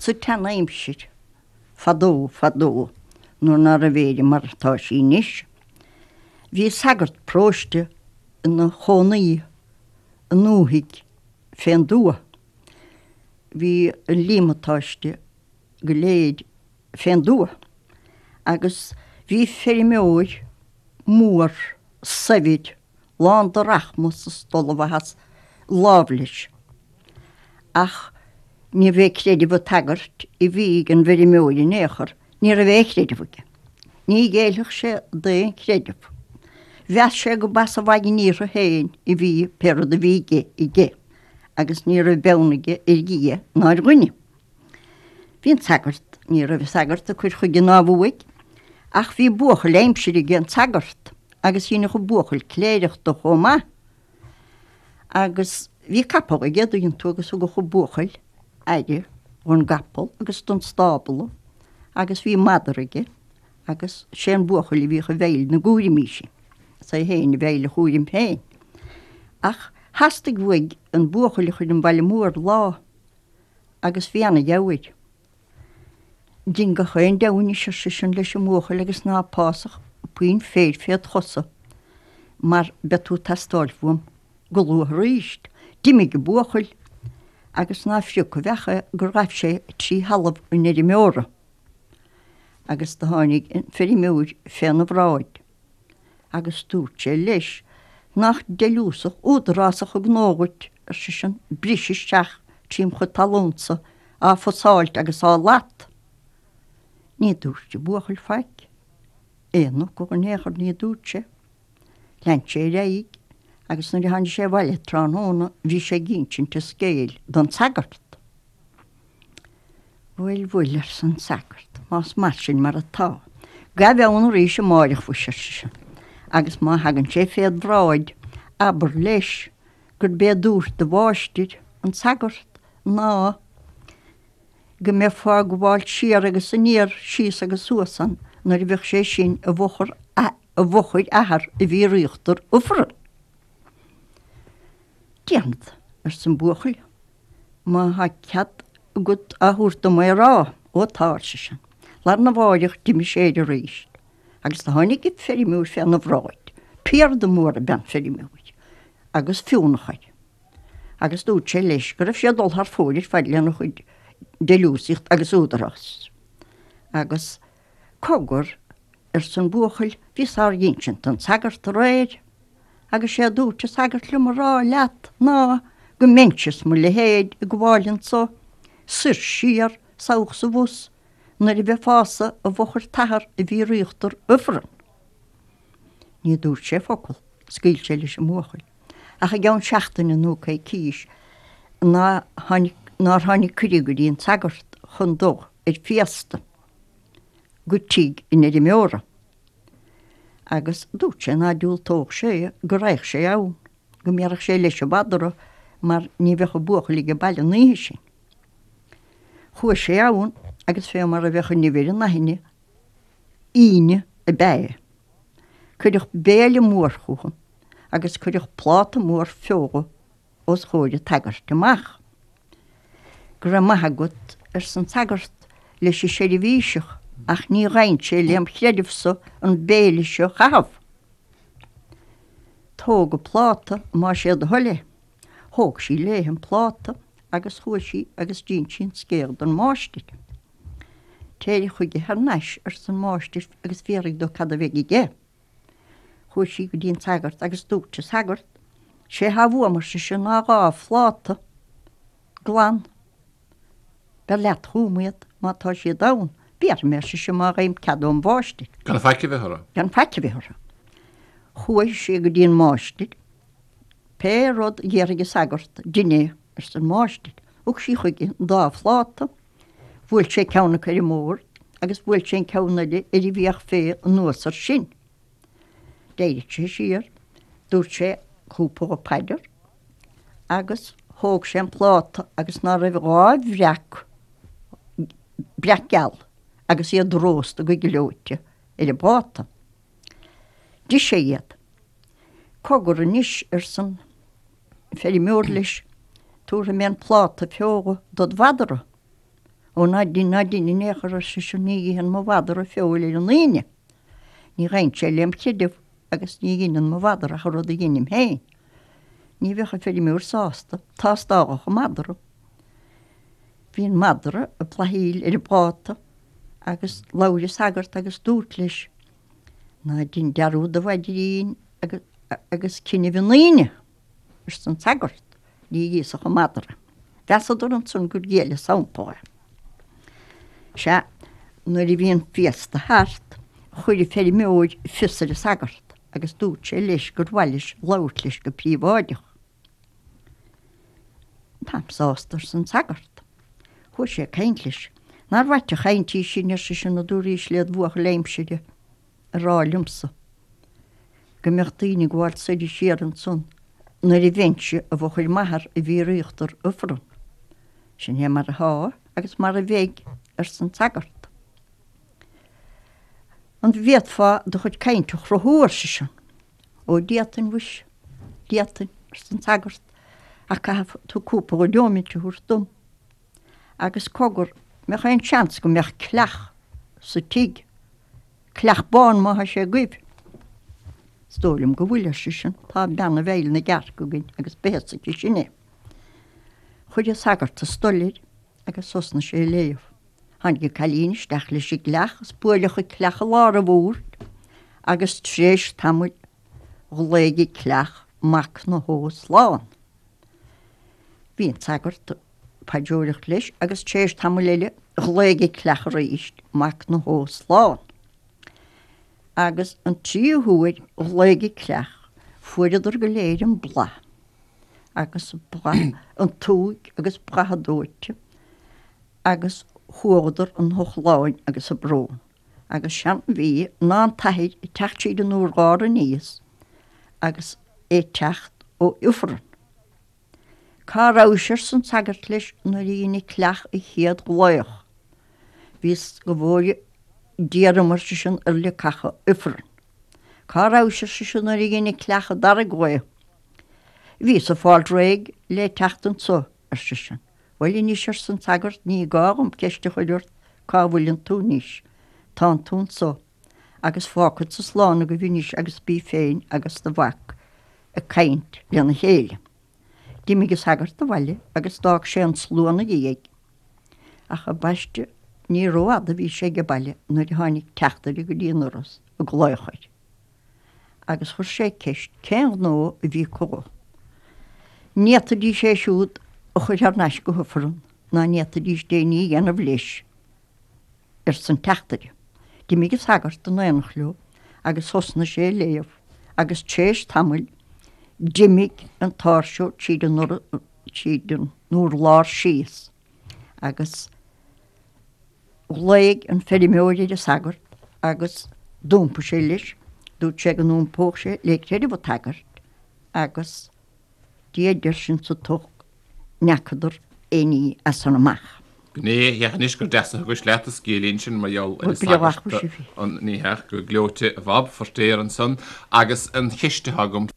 Sa tsean-aimsir, fadó, fadó, nuair ná raibh Éire mar atá sí anois, bhí sagart paróiste ina chónaí i ndúthaigh fén dtuath. Bhí an líomatáiste go léir fén dtuath agus bhí feirmeoir mór saibhir lán de rachmas is d'ollmhaitheas lámh leis. Ach níorbh é creideamh an tsagairt a bhí ag an bhfeirmeoir in aon chor, ní raibh aon chreideamh aige. Ní ghéillfeadh sé d'aon chreideamh. Mheas sé go b'as a mhaidin iarrtha féin a bhí pé rud a bhí aige aige agus ní raibh beann aige ar Dhia ná ar dhuine. Bhí an sagart, ní raibh an sagart ag cur chuige ná uaidh, ach bhí buachaill aimsire ag an tsagart agus dheineadh an buachaill cléireach de chomh maith. Agus bhí capall aige, an dtuigeann tú, agus thugadh an buachaill aire dhon gcapall agus don stábla agus bhí madra aige agus sé an buachaill a bhíodh i bhfeighil na gcúraimí sin. Is é féin i bhfeighil a chúraim féin. Ach theastaigh uaidh an buachaill a chur 'on bhaile mór lá agus bhí ana-gheamhar air. Dein gach aon deabhadh anois, ar seisean leis an mbuachaill, agus ná pásach puinn féir féd chosa, mar beidh tú ag teastáil uaim go luath aríst. D'imigh an buachaill, agus ná frioc a bheach é gur ghaibh sé trí thalamh an fheirmeora, agus do tháinig an feirmeoir féna bhráid. Agus dúirt sé leis, Nach deiliúsach údarásach an gnó dhuit, ar seisean, briseadh isteach trím chuid talúnsa á fusáilt agus á lat. Ní dúirt an buachaill faic. Aon fhocal in aon chor ní dúirt sé. Lean sé ar aghaidh agus nuair a tháinig sé abhaile tráthnóna bhí sé ag insint an scéil don sagart. Bhuel, bhuel, arsa an sagart, más mar sin mar atá, gabh ann arís amáireach mhuise, ar seisean, agus má thagann sé féd bhráid, abair leis gurb é dúirt do mháistir, an sagart, ná go mbeifeá ag gabháil siar agus aniar, síos agus suas ann nuair a bheadh sé sin i bhfochair i bhfochair athar a bhí ar íochtar ifrinn. Déanfad, arsa an buachaill. Má thá cead agat á thabhairt dom é a rá. Ó tá, ar seisean. Lá arna mháireach d'imigh sé air arís agus do tháinig an feirmeoir féna bhráid. Piarda mór ab ea an feirmeoir agus fionnadh air. Agus dúirt sé leis go raibh sé ag dul thar fóir ar fad lena chuid deiliúsaíocht agus údarás. Agus cogar, arsa an buachaill, bhíos á insint don sagart aréir. Agus sé a dúirt an sagart liom a rá leat ná go mbeinnse is mo leithéid ag gabháil anso soir siar, 's abhus 's abhus, nuair a bheifeása i bhfochair t'athar a bhí ar íochtar ifrinn. Ní dúirt sé focal, scaoil sé leis an mbuachaill. Ach i gceann seachtaine nó coicís ná tháinig, nár tháinig cuireadh go dtí an sagart chun dul ar féasta go tigh an fheirmeora. Agus dúirt sé ná diúltódh sé go raghadh sé ann, go mbéarfadh sé leis an mhadra mar ní bheadh an buachaill age baile an oíche sin. Chuaigh sé ann agus fé mar a bheadh an nimh ar an aithne, Aoine ab ea é. Cuireadh béile mór chucu agus cuireadh pláta mór feola os chomhair an tsagairt amach. Go raibh maith agat, arsa an sagart leis an seirbhíseach, ach ní ghabhann sé lem chreideamhsa an béile seo a chaitheamh. Tóg an pláta más é do thoil é. Thóg sí léithe an pláta agus chuaigh sí agus d'inis sí an scéal don mháistir. Téir chuige thar n-ais, arsa an máistir, agus fiafraigh de cad a bheidh aige. Chuaigh sí go dtí an sagart agus dúirt an sagart, 'Sé thá uaim, ar sise, ná 2 phláta glan. Beir leat chugam iad má tá siad ann. Béarfaidh mé, ar sise, má gheibhim cead óm mháistir. Gan faic a bheith orthu. Gan faic a bheith orthu. Chuaigh sí go dtí an máistir. Pé rud a déarfaidh an sagart, dein é, arsa an máistir. Thug sí chuige an dá phláta. Bhuail sé ceann acu ar an mbord agus bhuail sé an ceann eile ar an bhfiach fé anuas ar sin. D'éirigh sé siar, dúirt sé cúpla paidir agus thóg sé an pláta agus ná raibh 2 bhreac, breac geal agus iad rósta go gleoite ar an bpláta. D'ith sé iad. Cogar anois, arsan feirmeoir leis, tabharfaidh mé an pláta feola dod mhadra. Ó ná dein, ná dein in aon chor, ar seisean, ní itheann mo mhadra feoil ar an Aoine. Ní ghabhann sé lem chreideamh agus ní dheineann mo mhadra ach an rud a dheinim féin. Ní bheadh an feirmeoir sásta, tástáladh an madra. Bhí an madra ag blathaíl ar an bpláta agus labhair an sagart agus dúirt leis, Ná dein dearúd a mhaidrín agus cinneamh an Aoine! arsa an sagart, ní íosfadh an madra. Mheasadar ansan gur ghéill an sampla. Sea, nuair a bhí an féasta thart, chuir an feirmeoir fios ar an sagart agus dúirt sé leis gur mhaith leis labhairt leis go príobháideach. Táim sásta, arsa an sagart. Chuaigh sé ag caint leis. Nár mhaith an chaint í sin, ar seisean, a dúraís led bhuachaill aimsire a rá liomsa go mbeadh daoine ag gabháil soir is siar ansan nuair a bheinnse i bhfochair m'athar i bhfíor-íochtar Ifreann. Sin é mar atá agus mar a bheidh, arsa an sagart. An bhféadfá do chuid cainte a chruthú, ar seisean. Ó d'fhéadfainn, mhuis, d'fhéadfainn, arsa an sagart, ach caithfidh tú cúpla neomat a thabhairt dom. Agus cogar, mbeadh aon seans go mbeadh cleach sa tigh? Cleach bán má thá sé agaibh. Is dóigh liom go bhfuil, ar seisean, tá bean i bhfeighil na gcearc againn agus beidh a fhios aici sin é. Chuir an sagart an stole air agus thosnaigh sé ag léamh. Tháinig an cailín isteach leis an gcleach is buaileadh an cleach i lár an bhoird agus tréis tamaill ghlaoigh an cleach mac na hÓ slán. Bhí an sagart ag paidreoireacht leis agus tréis tamaill eile ghlaoigh an cleach arís mac na hÓ slán. Agus an tríú huair ghlaoigh an cleach fuaireadar go léir an blas agus blas an tsúigh agus blas an dóite agus chuadar an chochlainn agus an brón. Agus seanbhí ná an t-athair ag teacht tríd an urlár aníos agus é ag teacht ó Ifreann. Cá rabhais arsa an sagart leis nuair a dhein an cleach an chéad ghlaoch. Bhíos go bhfóire Dia orm ar seisean ar leacacha Ifrinn. Cá rabhais ar seisean nuair a dhein an cleach an dara glaoch. Bhíos ag fáil réidh le teacht anso ar seisean. Bhuel anois arsa an sagart ní gá dhom ceist a chur ort cá bhfuileann tú anois. Tánn tú anso. Agus fágfadsa slán agaibh anois agus bí féin agus do mhac ag caint lena chéile. D'imigh an sagart abhaile agus d'fhág sé an slua 'na dhiaidh. Ach ambaiste ní rófhada a bhí sé age baile nuair a tháinig teachtaire go dtí an doras ag glaoch air. Agus chuir sé ceist cén gnó a bhí chucu. Ní fhéadfaidís é siúd a chur thar n-ais go hIfreann ná ní fhéadfaidís d'aon ní a dhéanamh leis. arsa an teachtaire. D'imigh an sagart in aonacht leo agus thosnaigh sé ag léamh agus tréis tamaill d'imigh an t-áirseoir tríd an tríd an urlár síos agus ghlaoigh an feirmeoir ar an sagart agus d'iompaigh sé leis, dúirt sé go n-iompódh sé le creideamh an tsagairt agus Dia deir sin sa tsoc n'fheacadar aon ní as san amach. Gné dheas anois gur deas a thugais leat an scéilín sin mar gheall ar an sagart an ní headh go gleoite a Bhob, Feirtéar ansan agus an cheist atá agam.